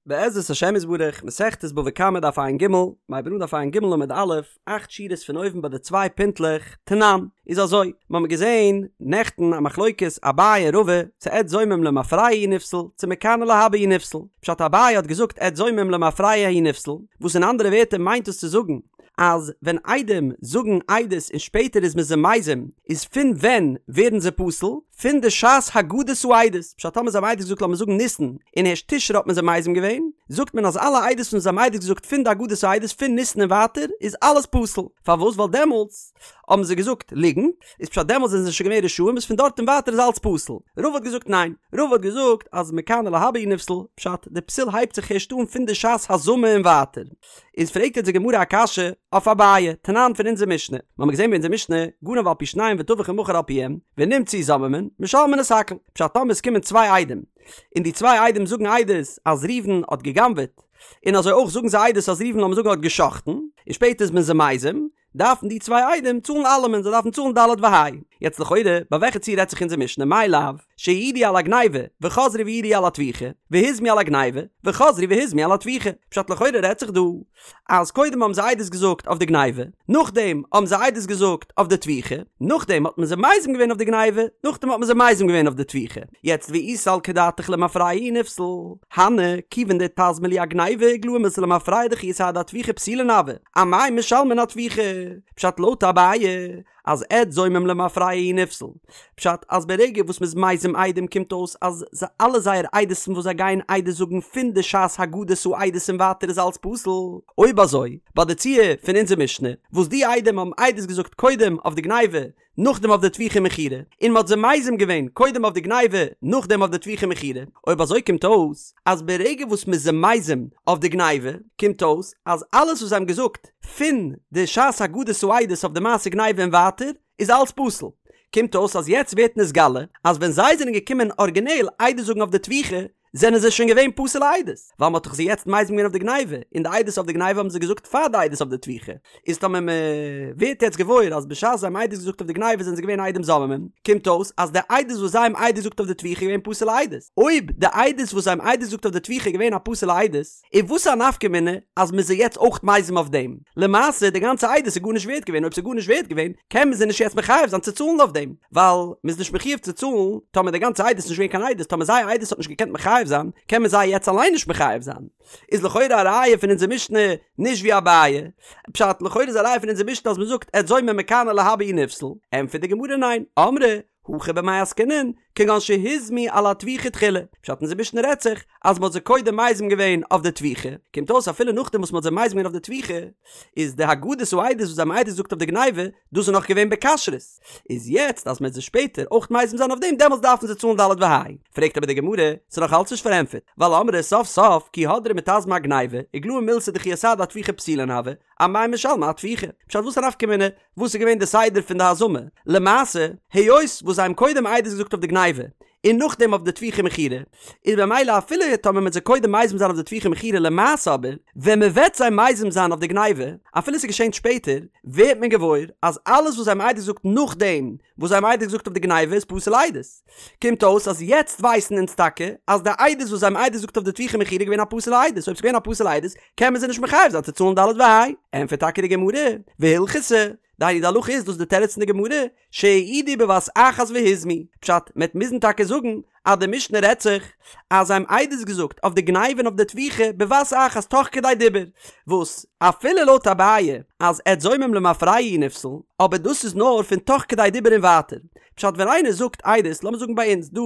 בעזרת השם יתברך, מסכת בבא קמא דף ע"ג, מ'הייבט אן דף ע"ג עמוד א', אכט שורות פון אויבן ביי די צוויי פינטלעך, תנן, איז אזוי, מ'האמיר געזען נעכטן א מחלוקת אביי און רבא, צו עד זומם למפרע הוא נפסל, צו מכאן ולהבא הוא נפסל. פשט אביי האט געזאגט עד זומם למפרע הוא נפסל, וואס אין אנדערע ווערטער מיינט דאס צו זאגן, אז ווען עדים זאגן עדות און שפעטער איז מען זיי מזים, איז פון ווען ווערן זיי פסול? פון די שעת הגדת העדות, פשט טאמער זיי האבן עדות געזאגט לאמיר זאגן ניסן, און הערשט תשרי האט מען זיי מזים געווען, זאגט מען אז אלע עדות וואס זיי האבן עדות געזאגט פון די הגדת העדות פון ניסן און ווייטער איז אלעס פסול, פארוואס? ווייל דעמאלטס האבן זיי געזאגט ליגנט, איז פשט דעמאלטס זענען זיי שוין געווען רשעים איז פון דארט און ווייטער איז אלץ פסול. רבא האט געזאגט ניין, רבא האט געזאגט אז מכאן ולהבא הוא נפסל, פשט די פסול הייבט זיך הערשט אן פון די שעת הזמה און ווייטער. איז פרעגט יעצט די גמרא א קשיא אויף אביי, תנן פון אונזער משנה, מיר האבן געזען ביי אונזער משנה, גנב על פי שניים וטבח ומכר על פיהם, ונמצאו זוממין, משלמין את הכל, פשט טאמער עס קומען צוויי עדים, און די צוויי עדים זאגן עדות אז ראובן האט גע'גנב'עט, און אזוי אויך זאגן זיי עדות אז ראובן לאמיר זאגן האט גע'שחט'ן, און שפעטער איז מען זיי מזים, דארפן די צוויי עדים צאלן אלעמען, זיי דארפן צאלן ד' וה'. יעצט לכאורה, ביי וועלכע ציור רעדט זיך אונזער משנה, מאי לאו, שהעידו על הגניבה, וחזרו והעידו על הטביחה, והוזמו על הגניבה, וחזרו והוזמו על הטביחה. פשט לכאורה רעדט זיך דא, אז קודם האבן זיי עדות געזאגט אויף די גניבה, נאכדעם האבן זיי עדות געזאגט אויף די טביחה, נאכדעם האט מען זיי מזים געווען אויף די גניבה, נאכדעם האט מען זיי מזים געווען אויף די טביחה. יעצט ואי סלקא דעתך למפרע הוא נפסל, הני, כיוון דאיתזמו להו אגניבה איגלאי מילתא למפרע דכי אסהדו אטביחה פסולין הוו, אמאי משלמין אטביחה? פשט לויט אביי אז עד זומם למפרע הוא נפסל. פשט אז ברגע וואס מ'איז מזים עדים קומט אויס אז אלע זייער עדות'ן וואס זיי גייען עדות זאגן פון די שעת הגדת העדות און ווייטער איז אלץ פסול. אויב אזוי ביי די ציור פון אונזער משנה וואס די עדים האבן עדות געזאגט קודם אויף די גניבה נאכדעם אויף די טביחה ומכירה, און מ'האט זיי מזים געווען קודם אויף די גניבה נאכדעם אויף די טביחה ומכירה, אויב אזוי קומט אויס אז ברגע וואס מ'איז זיי מזים אויף די גניבה קומט אויס אז אלעס וואס זיי האבן געזאגט פון די שעת הגדת העדות אויף די מעשה גניבה און ווייטער איז אלץ פסול. קומט אויס אז יעצט ווערט נתגלה אז ווען זיי זענען געקומען ארגינעל עדות זאגן אויף די טביחה זענען זיי שוין געווען פסול'ע עדות, ווייל מ'האט דאך זיי יעצט מזים געווען אויף די גניבה, און די עדות אויף די גניבה האבן זיי געזאגט פאר די עדות אויף די טביחה, איז טאמער מ'ווערט יעצט געוואויר אז בשעת זיי האבן עדות געזאגט אויף די גניבה זענען זיי געווען עדים זוממים, קומט אויס אז די עדות וואס זיי האבן עדות געזאגט אויף די טביחה איז געווען פסול'ע עדות. אויב די עדות וואס זיי האבן עדות געזאגט אויף די טביחה איז געווען א פסול'ע עדות, איז וואס א נפקא מינה אז מ'איז זיי יעצט אויך מזים אויף דעם? למעשה די גאנצע עדות איז גארנישט ווערט געווען, אויב ס'איז גארנישט ווערט געווען קען מען זיי נישט יעצט מחייב זיין צו צאלן אויף דעם, ווייל מ'איז נישט מחויב צו צאלן טאמער די גאנצע עדות איז נישט געווען קיין עדות, טאמער זייער עדות האט נישט געקענט מחייב זיין קען מען זיי יעצט אליין נישט מחייב זיין. איז לכאורה א ראיה פון אונזער משנה נישט ווי אביי. פשט, לכאורה איז א ראיה פון אונזער משנה אז מ'זאגט עד זומם מכאן ולהבא הוא נפסל, ענטפערט די גמרא ניין, אמרי הכא במאי עסקינן, כגון שהוזמו על הטביחה תחילה, פשט אונזער משנה רעדט זיך אז מ'האט זיי קודם מזים געווען אויף די טביחה, קומט אויס אפילו נאכדעם וואס מ'האט זיי מזים געווען אויף די טביחה, איז די הגדת העדות וואס זיי האבן עדות געזאגט אויף די גניבה, דאס איז נאך געווען בכשרות, איז יעצט אז מ'וועט זיי שפעטער אויך מזים זיין אויף דעם דעמאלטס דארפן זיי צאלן ד' וה'. פרעגט אבער די גמרא, ס'איז נאך אלץ נישט פארענטפערט, ווייל אמרי סוף סוף כי הדרי מיתזמי אגניבה, איגלאי מילתא דכי אסהדו אטביחה פסולין הוו, אמאי משלמי אטביחה? פשט וואס א נפקא מינה וואס איז געווען די סדר פון די הזמה? למעשה, היות וואס זיי האבן קודם עדות געזאגט אויף די גניבה, און נאכדעם אויף די טביחה מכירה, איז במילא אפילו טאמער מ'וועט זיי קודם מזים זיין אויף די טביחה מכירה למעשה אבער ווען מ'וועט זיי מזים זיין אויף די גניבה, אפילו ס'איז געשען שפעטער, ווערט מען געוואויר אז אלעס וואס זיי האבן עדות געזאגט נאכדעם וואס זיי האבן עדות געזאגט אויף די גניבה איז פסול עדות. קומט אויס אז יעצט ווייסן אונז טאקע אז די עדות וואס זיי האבן עדות געזאגט אויף די טביחה מכירה איז געווען א פסול'ע עדות, אויב ס'איז געווען א פסול'ע עדות קען מען זיי נישט מחייב זיין צו צאלן ד' וה'. ענטפערט טאקע די גמרא, והלכתא, דהיינו די הלכה איז דאס די תירוץ פון די גמרא, שהעידו בבת אחת והוזמו, פשט, מ'עט מוזן טאקע זאגן אז די משנה רעדט זיך אז זיי האבן עדות געזאגט אויף די גניבה און אויף די טביחה בבת אחת תוך כדי דיבור, וואס אפילו לויט אביי אז עד זומם למפרע הוא נפסל, אבער דאס איז נאר פון תוך כדי דיבור און ווייטער, פשט ווען איינער זאגט עדות, לאמיר זאגן ביי אונז דא,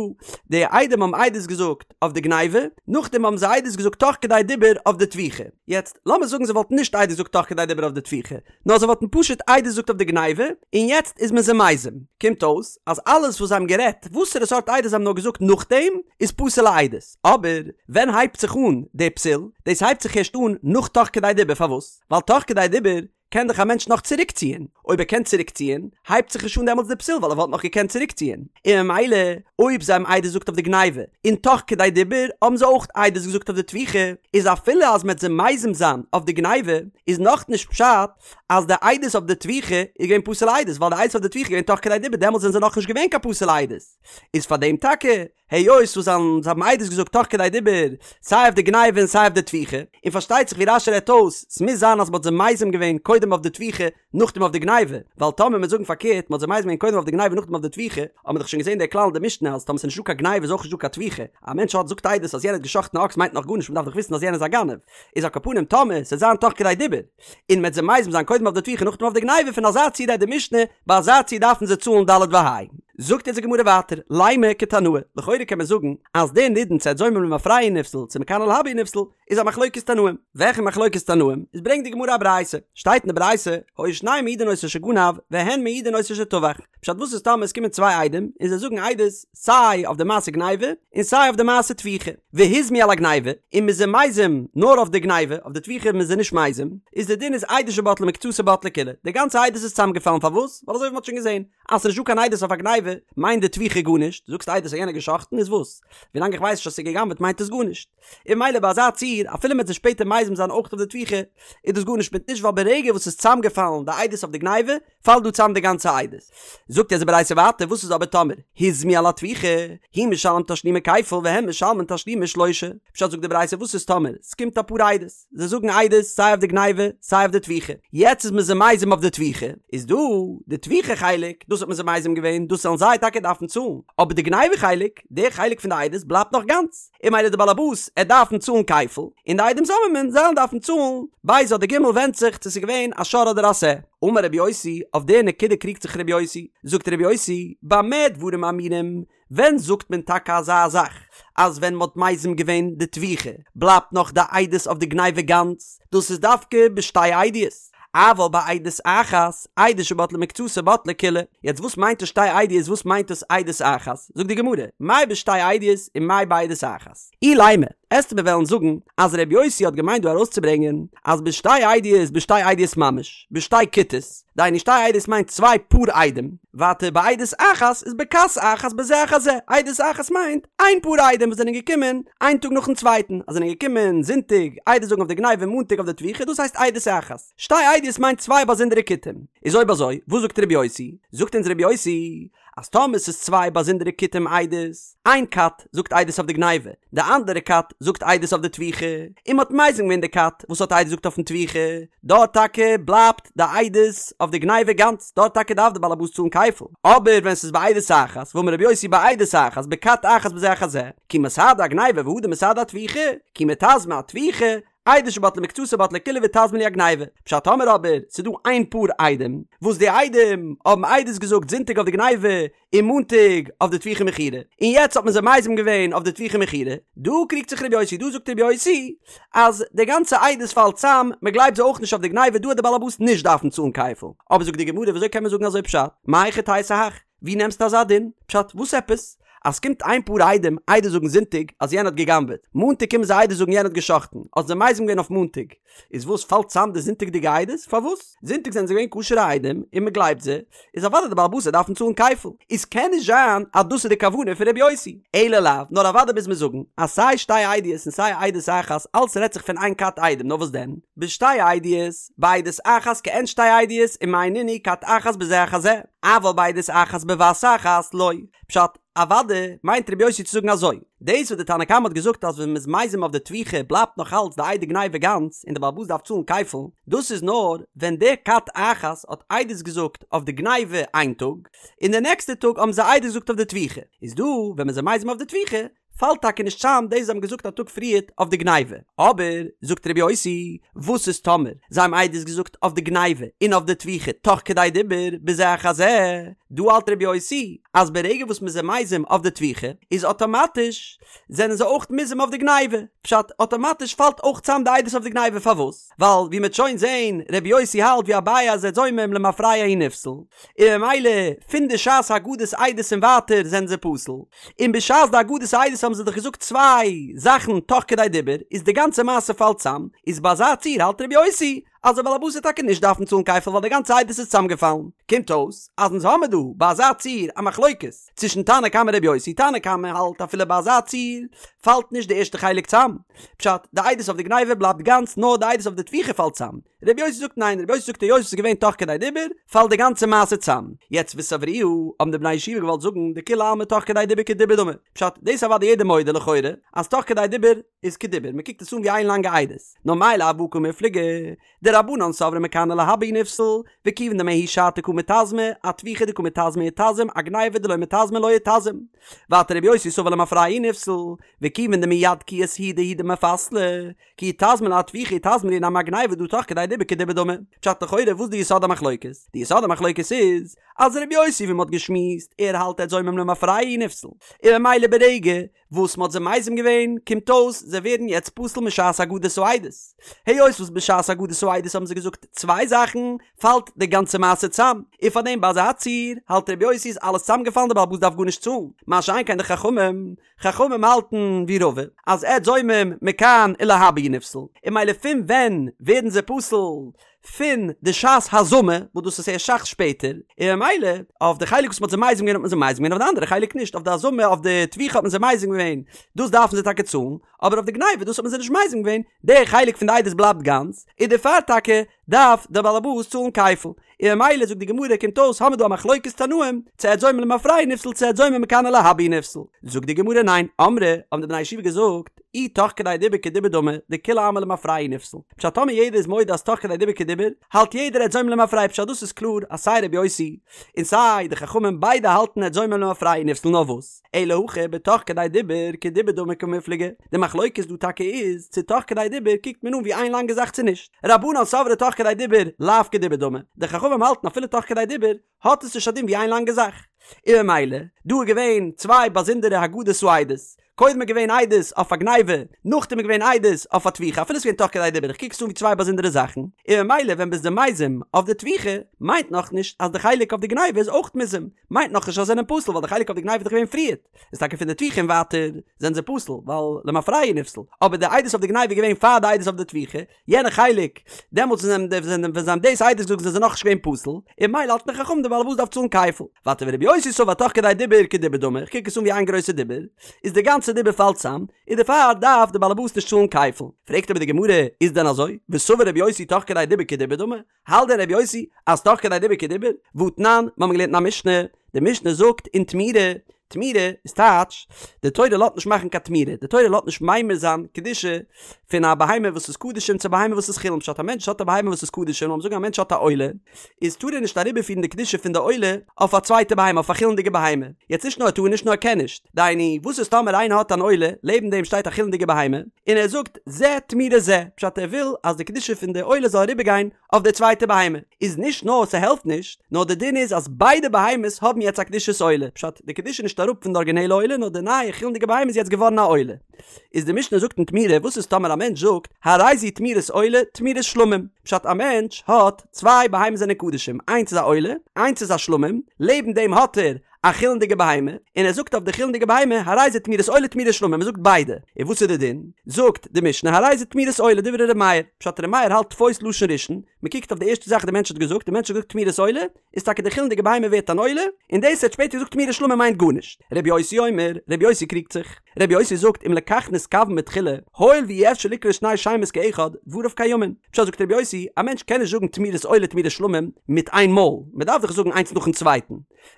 די עדים האבן עדות געזאגט אויף די גניבה, נאכדעם האבן זיי עדות געזאגט תוך כדי דיבור אויף די טביחה, יעצט לאמיר זאגן זיי וואלטן נישט עדות געזאגט תוך כדי דיבור אויף די טביחה, נאר זיי וואלטן פשוט עדות געזאגט אויף די גניבה, און יעצט איז מען זיי מזים. קומט אויס אז אלעס וואס זיי האבן גערעדט, וואסערע סארט עדות זיי האבן נאר געזאגט נאכדעם, איז פסול'ע עדות. אבער ווען הייבט זיך אן די פסול? דאס הייבט זיך ערשט אן נאך תוך כדי דיבור, פארוואס? ווייל תוך כדי דיבור קען דאך א מענטש נאך צוריקציען. אויב ער קען צוריקציען, הייבט זיך נישט אן דעמאלטס די פסול ווייל ער וואלט נאך געקענט צוריקציען, און ממילא אויב זיי האבן עדות געזאגט אויף די גניבה, און תוך כדי דיבור האבן זיי אויך עדות געזאגט אויף די טביחה, איז אפילו אז מ'עט זיי מזים זיין אויף די גניבה, איז נאכנישט פשט אז די עדות אויף די טביחה איז געווען פסול'ע עדות, ווייל די עדות אויף די טביחה איז געווען תוך כדי דיבור דעמאלטס זענען זיי נאכנישט געווען קיין פסול'ע עדות, איז פאר דעם טאקע היות וואס זיי האבן עדות געזאגט תוך כדי דיבור סיי אויף די גניבה און סיי אויף די טביחה, און פארשטייט זיך ווי רש"י רעדט אויס, ס'מוז זיין אז מ'האט זיי מזים געווען קודם אויף די טביחה נאכדעם אויף די גניבה, ווייל טאמער מ'וועט זאגן פארקערט מ'האט זיי מזים געווען קודם אויף די גניבה נאכדעם אויף די טביחה, האט מען דאך שוין געזען דער כלל אין די משנה אז טאמער ס'איז נישטא קיין גניבה איז אויך נישטא קיין טביחה, א מענטש האט זאגט עדות אז יענער האט גע'שחט'ן א אקס מיינט נאך גארנישט מ'דארף דאך וויסן אז יענער איז א גנב, איז על כל פנים טאמער ס'וועט זיין תוך כדי דיבור און מ'וועט זיי מזים זיין קודם אויף די טביחה נאכדעם אויף די גניבה פון אזא ציור רעדט די משנה, ביי אזא ציור דארפן זיי צאלן ד' וה'. זאגט אונז די גמרא ווייטער, לימא כתנאי, לכאורה קען מען זאגן אז דער נידון צו עד זומם למפרע הוא נפסל צו מכאן ולהבא הוא נפסל איז א מחלוקת תנאים. וועלכע מחלוקת תנאים? איז ברענגט די גמרא א ברייתא, שטייט אין די ברייתא, היו שניהם מעידין אותו שגנב והן מעידין אותו שטבח, פשט וואס איז טאמער עס קומען צוויי עדים און זיי זאגן עדות סיי אויף די מעשה גניבה און סיי אויף די מעשה טביחה, והוזמו על הגניבה, און מ'איז זיי מזים נאר אויף די גניבה, אויף די טביחה איז מען זיי נישט מזים, איז די דין איז עדות שבטלה מקצתה בטלה כולה, די גאנצע עדות איז צוזאמגעפאלן פארוואס? ווייל אזוי ווי מ'האט שוין געזען אז ס'נישט דא קיין עדות אויף א גניבה מיינט די טביחה גארנישט, זאגסט עדות אז יענער האט גע'שחט'ן איז וואס? ווילאנג איך ווייס נישט אז ס'איז גע'גנב'עט מיינט עס גארנישט. און ממילא ביי אזא ציור אפילו מ'וועט זיי שפעטער מזים זיין אויך אויף די טביחה איז דאס גארנישט מיט נישט ווייל ברגע וואס ס'איז צוזאמגעפאלן די עדות אויף די גניבה פאלט דא צאם די גאנצע עדות. זאגט אונז די ברייתא ווייטער וואס איז אבער טאמער הוזמו על הטביחה, הוא משלם תשלומי כפל והן משלמין תשלומי שלושה, פשט זאגט די ברייתא וואס איז טאמער ס'קומט אפאר עדות, זיי זאגן עדות סיי אויף די גניבה סיי אויף די טביחה, יעצט איז מען זיי מזים אויף די טביחה, איז דא די טביחה חלק דאס האט מען זיי מזים געווען דאס זאלן זיי טאקע דארפן צאלן, אבער די גניבה חלק, די חלק פון די עדות בלייבט נאך גאנץ. און ממילא די באלעבאס עט דארפן צאלן כפל, און די עדים זוממין זיי'לן דארפן צאלן ב' אדער ג' ווענדט זיך צו ס'איז געווען א שור אדער א שה. אמר רבי יוסי, אויף די נקודה קריגט זיך רבי יוסי, זאגט רבי יוסי, במה דברים אמורים, ווען זאגט מען טאקע אזא זאך אז ווען מ'האט מזים געווען די טביחה בלייבט נאך די עדות אויף די גניבה גאנץ, דאס איזדווקא בשתי עדיות, אבל בעדות אחת, עדות שבטלה מקצתה בטלה כולה. יעצט וואס מיינט דאס שתי עדיות וואס מיינט דאס עדות אחת? זאגט די גמרא, מאי בשתי עדיות און מאי בעדות אחת? אילימא, עסטו מיר וועלן זאגן אז ר' יוסי האט געמיינט דא ארויסצוברענגען אז בשתי עדיות בשתי עדיות ממש, בשתי כיתות, דהיינו שתי עדיות מיינט צוויי פאר עדים, ווייטער בעדות אחת איז בכת אחת בזה אחר זה, עדות אחת מיינט איין פאר עדים וואס זענען געקומען איין טאג נאכן צווייטן, אז זענען געקומען זונטאג עדות זאגן אויף די גניבה און מאנטאג אויף די טביחה דאס הייסט עדות אחת, שתי עדיות מיינט צוויי באזונדערע כיתים, איז אויב אזוי וואס זאגט ר' יוסי? זאגט אונז ר' יוסי אז טאמער ס'איז צוויי באזונדערע כיתים עדות, איין כת זאגט עדות אויף די גניבה, די אנדערע כת זאגט עדות אויף די טביחה, און מ'האט מזים געווען די כת וואס האט עדות געזאגט אויפן טביחה, דארט טאקע בלייבט די עדות אויף די גניבה גאנץ, דארט טאקע דארף די בעל הבית צאלן כפל, אבער ווען ס'איז בעדות אחת, ואמר רבי יוסי בעדות אחת, בכת אחת בזה אחר זה, כי מסהדי אגניבה והדר מסהדי אטביחה, כי מיתזמי אטביחה, עדות שבטלה מקצתה בטלה כולה ואיתזמא להו אגניבה. פשט טאמער אבער ס'איז דא איין פאר עדים, וואס די עדים האבן עדות געזאגט זונטאג אויף די גניבה און מאנטאג אויף די טביחה מכירה, און יעצט האט מען זיי מזים געווען אויף די טביחה מכירה, דא קריגט זיך רבי יוסי, דא זאגט רבי יוסי אז די גאנצע עדות פאלט צאם, מען גלייבט זיי אויך נישט אויף די גניבה, דא וועט די בעל הבית נישט דארפן צאלן כפל. אבער זאגט די גמרא וויאזוי קען מען זאגן אזוי פשט? מהיכי תיתי הך? ווי נעמסטו אזא דין? פשט וואס עפעס? אז ס'קומט איין פאר עדים עדות זאגן זונטאג אז יענער האט גע'גנב'עט, מאנטאג קומען זיי עדות זאגן יענער האט גע'שחט'ן, האט זיי מזים געווען אויף מאנטאג, איז וואס פאלט צאם די זונטאג'דיגע עדות? פארוואס? זונטאג זענען זיי געווען כשר'ע עדים און מ'גלייבט זיי, איז אוודאי די בעל הבית וועט דארפן צאלן כפל, איז קען נישט זיין אז דאס איז די כוונה פון ר' יוסי, אלא לאו, נאר אוודאי מוז מען זאגן אז סיי שתי עדיות און סיי עדות אחת אלץ רעדט זיך פון איין כת עדים, נאר וואס דען? בשתי עדיות, בעדות אחת כעין שתי עדיות ומאי נינהו כת אחת בזה אחר זה, אבל בעדות אחת בבת אחת לא. פשט, אוודאי מיינט רבי יוסי צו זאגן אזוי, דאס וואס די תנא קמא האט געזאגט אז ווען מ'איז מזים אויף די טביחה בלייבט נאך אלץ די עדי גניבה גאנץ און די בעל הבית דארף צאלן כפל, דאס איז נאר ווען די כת אחת האט עדות געזאגט אויף די גניבה איין טאג, און די נעקסטע טאג האבן זיי עדות געזאגט אויף די טביחה, איז דא ווען מ'איז מזים אויף די טביחה פאלט טאקע נישט צאם דאס זיי האבן געזאגט א טאג פריערט אויף די גניבה. אבער, זאגט רבי יוסי, וואס איז טאמער זיי האבן עדות געזאגט אויף די גניבה און אויף די טביחה תוך כדי דיבור בזה אחר זה, דא האלט רבי יוסי אז ברגע וואס מ'איז זיי מזים אויף די טביחה איז אטאמאטיש זענען זיי אויך מוזם אויף די גניבה, פשט, אטאמאטיש פאלט אויך צאם די עדות אויף די גניבה, פארוואס? ווייל ווי מ'עט שוין זעהן רבי יוסי האלט ווי אביי אז עד זומם למפרע הוא נפסל, און ממילא פון די שעת הגדת עדות און ווייטער זענען זיי פסול, און בשעת די הגדת עדות האבן זיי דאך געזאגט צוויי זאכן תוך כדי דיבור, איז די גאנצע מעשה פאלט צאם, איז ביי אזא ציור האלט רבי יוסי. אז דער בעל הבית וועט טאקע נישט דארפן צאלן כפל ווייל די גאנצע עדות איז צוזאמגעפאלן. קומט אויס אז אונז האמיר דא ביי אזא ציור א מחלוקת צווישן תנא קמא רבי יוסי, תנא קמא האלט אפילו ביי אזא ציור פאלט נישט די ערשטע חלק צאם, פשט, די עדות אויף די גניבה בלייבט גאנץ נאר די עדות אויף די טביחה פאלט צאם, רבי יוסי זאגט ניין, רבי יוסי זאגט היות עס איז געווען תוך כדי דיבור פאלט די גאנצע מעשה צאם. יעצט וסברוה האבן די בני ישיבה געוואלט זאגן דכולי עלמא תוך כדי דיבור כדיבור דמי, פשט, דאס איז אוודאי יעדער מודה לכאורה אז תוך כדי דיבור איז כדיבור, מען קוקט עס אן ווי איין לאנגע עדות, נאר מאי לאו בהא קמיפלגי, דרבנן סברי מכאן ולהבא הוא נפסל, וכיוון דמההיא שעתא קא מיתזמי, אטביחה דקא מיתזמי איתזם, אגניבה דלא מיתזמי לא איתזם. ווייטער רבי יוסי סבר למפרע הוא נפסל, וכיוון דמיד כי אסהידו הוא דמיפסלי, כי איתזמא להו אטביחה איתזמא להו נמי אגניבה דהא תוך כדי דיבור כדיבור דמי. פשט לכאורה וואס די יסוד המחלוקת? די יסוד המחלוקת איז אז רבי יוסי ווי מ'האט געשמועסט ער האלט עד זומם למפרע הוא נפסל, און ממילא ברגע וואס מ'האט זיי מזים געווען קומט אויס זיי ווערן יעצט פסול משעת הגדת העדות. היות וואס בשעת הגדת העדות האבן זיי געזאגט צוויי זאכן פאלט די גאנצע מעשה צאם, און פארדעם ביי אזא ציור האלט רבי יוסי איז אלעס צאמגעפאלן די בעל הבית דארף גארנישט צאלן, מה שאין כן די חכמים, חכמים האלטן ווי רבא אז עד זומם מכאן ולהבא הוא נפסל, און ממילא פון ווען ווערן זיי פסול? פון די שעת הזמה וואס דאס איז ערשט אסאך שפעטער, און ממילא אויף די חלק וואס מ'האט זיי מזים געווען האט מען זיי מזים געווען אויף די אנדערע חלק נישט, אויף די הזמה אויף די טביחה האט מען זיי מזים געווען דאס דארפן זיי טאקע צאלן, אבער אויף די גניבה דאס האט מען זיי נישט מזים געווען, די חלק פון די עדות בלייבט גאנץ, און דערפאר טאקע דארף דער בעל הבית צאלן כפל. און ממילא זאגט די גמרא קומט אויס האמיר דא א מחלוקת תנאים, צו עד זומם למפרע הוא נפסל צו עד זומם מכאן ולהבא הוא נפסל. זאגט די גמרא ניין, אמרי, האבן די בני הישיבה געזאגט, אי תוך כדי דיבור כדיבור דמי, דכולי עלמא למפרע הוא נפסל. פשט טאמער יעדער איז מודה אז תוך כדי דיבור כדיבור, האלט יעדער עד זומם למפרע פשט דאס איז קלאר אז סיי רבי יוסי און סיי די חכמים ביידע האלטן עד זומם למפרע הוא נפסל נאר וואס אלא הכא בתוך כדי דיבור כדיבור דמי קמיפלגי, די מחלוקת דא טאקע איז צו תוך כדי דיבור קוקט מען אן ווי איין לאנגע זאך צו נישט, רבנן סברי תוך כדי דיבור לאו כדיבור דמי, די חכמים האלטן אפילו תוך כדי דיבור האט עס נישט א דין ווי איין לאנגע זאך. און ממילא, דא איז געווען צוויי באזונדערע הגדות העדות, קודם איז געווען עדות אויף א גניבה, נאכדעם איז געווען עדות אויף א טביחה, אפילו עס איז געווען תוך כדי דיבור, איך קוק עס אן ווי צוויי באזונדערע זאכן, און ממילא ווען ביסט זיי מזים אויף די טביחה, מיינט נאכנישט אז די חלק אויף די גניבה איז אויך מוזם, מיינט נאכנישט אז זיי זענען פסול ווייל די חלק אויף די גניבה איז דאך געווען פריערט, איז טאקע פון די טביחה און ווייטער זענען זיי פסול ווייל למפרע הוא נפסל, אבער די עדות אויף די גניבה איז געווען פאר די עדות אויף די טביחה, יענע חלק, דעמאלטס ווען זיי האבן ווען זיי האבן דאס עדות געזאגט זענען זיי נאכנישט געווען פסול, און ממילא האלטן די חכמים די בעל הבית דארף צאלן כפל. ווייטער ורבי יוסי סבר תוך כדי דיבור כדיבור דמי, איך קוק עס אן ווי איין גרויסע דיבור, איז די גאנצע דיבור פאלט צאם, און דערפאר דארף די בעל הבית נישט צאלן כפל. פרעגט אבער די גמרא, איז דען אזוי? וסבר רבי יוסי תוך כדי דיבור כדיבור דמי? האלט דען רבי יוסי אז תוך כדי דיבור כדיבור? והתנן, מיר האבן געלערנט אין א משנה, די משנה זאגט אין תמורה, תמורה איז טייטש, די תורה לאזט נישט מאכן קיין תמורה, די תורה לאזט נישט ממיר זיין קדושה פון א בהמה וואס איז קדשים צו א בהמה וואס איז חולין, פשט א מענטש האט א בהמה וואס איז קדשים, לאמיר זאגן א מענטש האט א עולה, איז טאר ער נישט אריבערפירן די קדושה פון די עולה אויף א צווייטע בהמה, אויף א חולין'דיגע בהמה, יעצט נישט נאר ער טאר נישט נאר ער קען נישט, דהיינו וואס איז טאמער איינער האט אן עולה, לעבן דעם שטייט א חולין'דיגע בהמה, און ער זאגט זה תמורת זה, פשט ער וויל אז די קדושה פון די עולה זאל אריבערגיין אויף די צווייטע בהמה, איז נישט נאר ס'העלפט נישט, נאר די דין איז אז ביידע בהמות האבן יעצט א קדושת עולה, פשט די קדושה איז נישט אראפ פון די ארגינעלע עולה נאר די נייע חולין'דיגע בהמה איז יעצט געווארן א עולה. איז די משנה זאגט אין תמורה וואס איז טאמער א מענטש זאגט הרי זו תמורת עולה תמורת שלמים, פשט א מענטש האט צוויי בהמות זענען קדשים איינס איז א עולה איינס איז א שלמים, לעבן דעם האט ער א חולין'דיגע בהמה, און ער זאגט אויף די חולין'דיגע בהמה, הרי זה תמורת עולה תמורת שלמים, ער זאגט ביידע, און וואס איז די דין? זאגט די משנה הרי זה תמורת עולה דברי ר' מאיר, פשט ר' מאיר האלט תפוס לשון ראשון, מען קוקט אויף די ערשטע זאך די מענטש האט געזאגט, די מענטש האט געזאגט תמורת עולה, איז טאקע די חולין'דיגע בהמה ווערט אן עולה, און דאס ער האט שפעטער געזאגט תמורת שלמים מיינט גארנישט. ר' יוסי אומר, ר' יוסי קריגט זיך, ר' יוסי זאגט אם לכך נתכוון בתחילה, הואיל ואי אפשר לקרוא שני שמות כאחד, דבריו קיימין. פשט זאגט ר' יוסי, א מענטש קען נישט זאגן תמורת עולה תמורת שלמים מיט איין מאל, מען דארף דאך זאגן איינס נאכן צווייטן.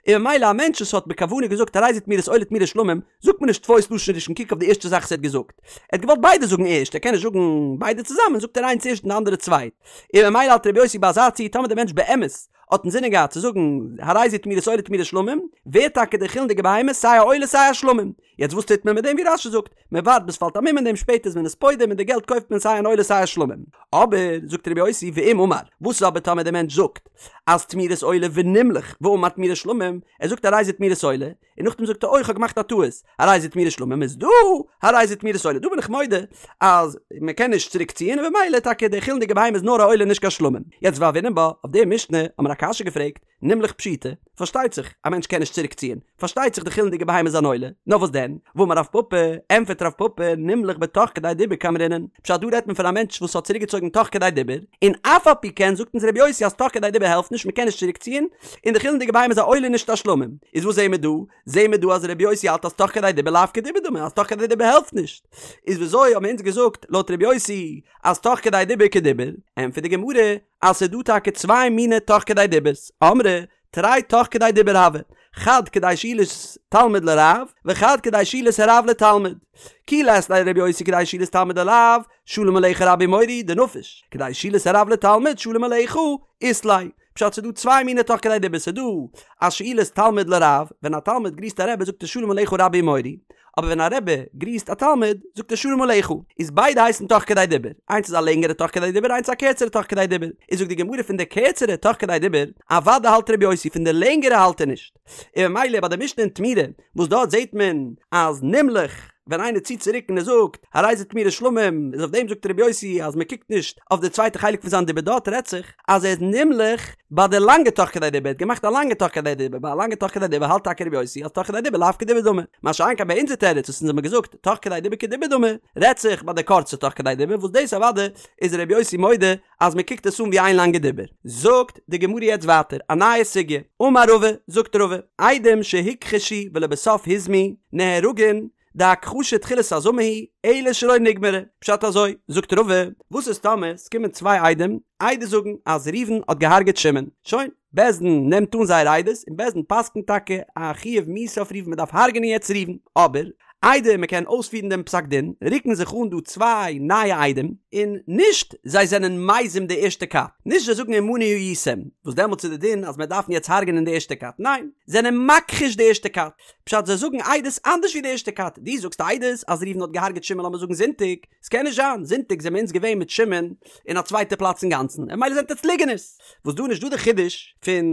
און ממילא א מענטש וואס האט בכוונה געזאגט הרי זה תמורת עולה תמורת שלמים, זאגט מען נישט תפוס לשון ראשון קוק אויף די ערשטע זאך וואס ער האט געזאגט. ער האט געוואלט ביידע זאגן ערשט, ער קען נישט זאגן ביידע צוזאמען, זאגט ער איינס ערשט און די אנדערע צווייט. און ממילא האלט רבי יוסי ביי אזא ציור טאמער דער מענטש באמת האט אינזינען געהאט צו זאגן הרי זה תמורת עולה תמורת שלמים, ווערט טאקע די חולין'דיגע בהמה סיי א עולה סיי א שלמים. יעצט וואס טוט מען מיט דעם ווי רש"י זאגט, מען ווארט ביז ס'פאלט א מום אין דעם שפעטער איז מען עס פודה מיט די געלט קויפט מען סיי אן עולה סיי א שלמים. אבער זאגט רבי יוסי ואם אמר, וואס איז אבער טאמער דער מענטש זאגט אז תמורת עולה ונמלך ואמר תמורת שלמים, ער זאגט הרי זה תמורת עולה, און נאכדעם זאגט ער אוי כ'האב געמאכט א טעות, הרי זה תמורת שלמים איז דא הרי זה תמורת עולה, דא בין איך מודה אז מען קען נישט צוריק ציען און במילא טאקע די חולין'דיגע בהמה איז נאר א עולה נישט קיין שלמים. יעצט והוינן בה, אויף די משנה האט מען א קשיא געפרעגט, נמלך פשיטא. פארשטייט זיך א מענטש קען נישט צוריק ציען, פארשטייט זיך די חולין'דיגע בהמה איז אן עולה, נאר וואס דען? ואמר רב פפא, ענפערט רב פפא, נמלך בתוך כדי דיבור קאמרינן, פשט דא רעדט מען פון א מענטש וואס האט צוריק געצויגן תוך כדי דיבור, און אף על פי כן זאגט אונז רבי יוסי אז תוך כדי דיבור העלפט נישט מ'קען נישט צוריק ציען, און די חולין'דיגע בהמה איז א עולה נישט א שלמים, איז וואס זעהן מיר דא? זעהן מיר דא אז רבי יוסי האלט אז תוך כדי דיבור לאו כדיבור דמי אז תוך כדי דיבור העלפט נישט, איז וויאזוי האבן אונז געזאגט לויט רבי יוסי אז תוך כדי דיבור כדיבור? ענטפערט די גמרא אז ס'איז דא טאקע צוויי מיני תוך כדי דיבור'ס, אמרי תרי תוך כדי דיבור הוו, חד כדי שאילת תלמיד לרב, וחד כדי שאילת הרב לתלמיד. כי לית ליה לרבי יוסי כדי שאילת תלמיד לרב, שלום עליך רבי ומורי דנפיש, כדי שאילת הרב לתלמיד שלום עליך אית ליה. פשט ס'איז דא צוויי מיני תוך כדי דיבור ס'איז דא א שאילת תלמיד לרב, ווען א תלמיד גריסט א רבי זאגט ער שלום עליך רבי ומורי, אבער ווען א רבי גריסט א תלמיד זאגט ער שלום עליך, איז ביידע הייסן תוך כדי דיבור, איינס איז א לענגערע תוך כדי דיבור איינס איז א קערצערע תוך כדי דיבור, איז זאגט די גמרא פון די קערצערע תוך כדי דיבור, אוודאי האלט רבי יוסי פון די לענגערע האלט ער נישט, און ממילא ביי די משנה אין תמורה וואס דארט זעט מען אז נמלך ווען איינער ציט צוריק און ער זאגט הרי זה תמורת שלמים איז אויף דעם זאגט רבי יוסי אז מען קוקט נישט אויף די צווייטע חלק פון זיין דיבור דארט רעדט זיך אז ער איז נמלך ביי די לאנגע תוך כדי דיבור ער האט געמאכט א לאנגע תוך כדי דיבור ביי א לאנגע תוך כדי דיבור האלט טאקע רבי יוסי אז תוך כדי דיבור לאו כדיבור דמי מה שאין כן ביי אונזער תירוץ וואס אונז האבן געזאגט תוך כדי דיבור כדיבור דמי רעדט זיך ביי די קורצע תוך כדי דיבור וואס דאס אוודאי איז רבי יוסי מודה אז מען קוקט עס אן ווי איין לאנגע דיבור. זאגט די גמרא יעצט ווייטער א נייע סוגיא, אמר רבא, זאגט רבא, עדים שהוכחשו ולבסוף הוזמו, נהרגין, דהכחשה תחילת הזמה היא, אלא שלא נגמרה. פשט אזוי, זאגט רבא, וואס איז טאמער ס'קומען צוויי עדים עדות זאגן אז ראובן האט געהארגעט שמעון, שוין, בית דין נעמט אן זייער עדות און בית דין פסק'נט טאקע א חיוב מיתה אויף ראובן מ'דארף הרג'נען יעצט ראובן, אבער איידער מ'קען אויספירן דעם פסק דין רוקן זיך אן דא צוויי נייע עדים, און נישט זיי זענען מזים די ערשטע כת, נישט זיי זאגן עמנו הייתם, וואס דעמאלטס איז די דין אז מען דארף יעצט הרג'נען די ערשטע כת, ניין, זענען מכחיש די ערשטע כת, פשט זיי זאגן עדות אנדערש ווי די ערשטע כת, דו זאגסט עדות אז ראובן האט געהארגעט שמעון לאמיר זאגן זונטאג, ס'קען נישט זיין, זונטאג זעמיר אונז געווען מיט שמעון אין א צווייטע פלאץ אינגאנצן, און ממילא זענט עטץ ליגענערס. וואס דא נישט דא די חידוש פון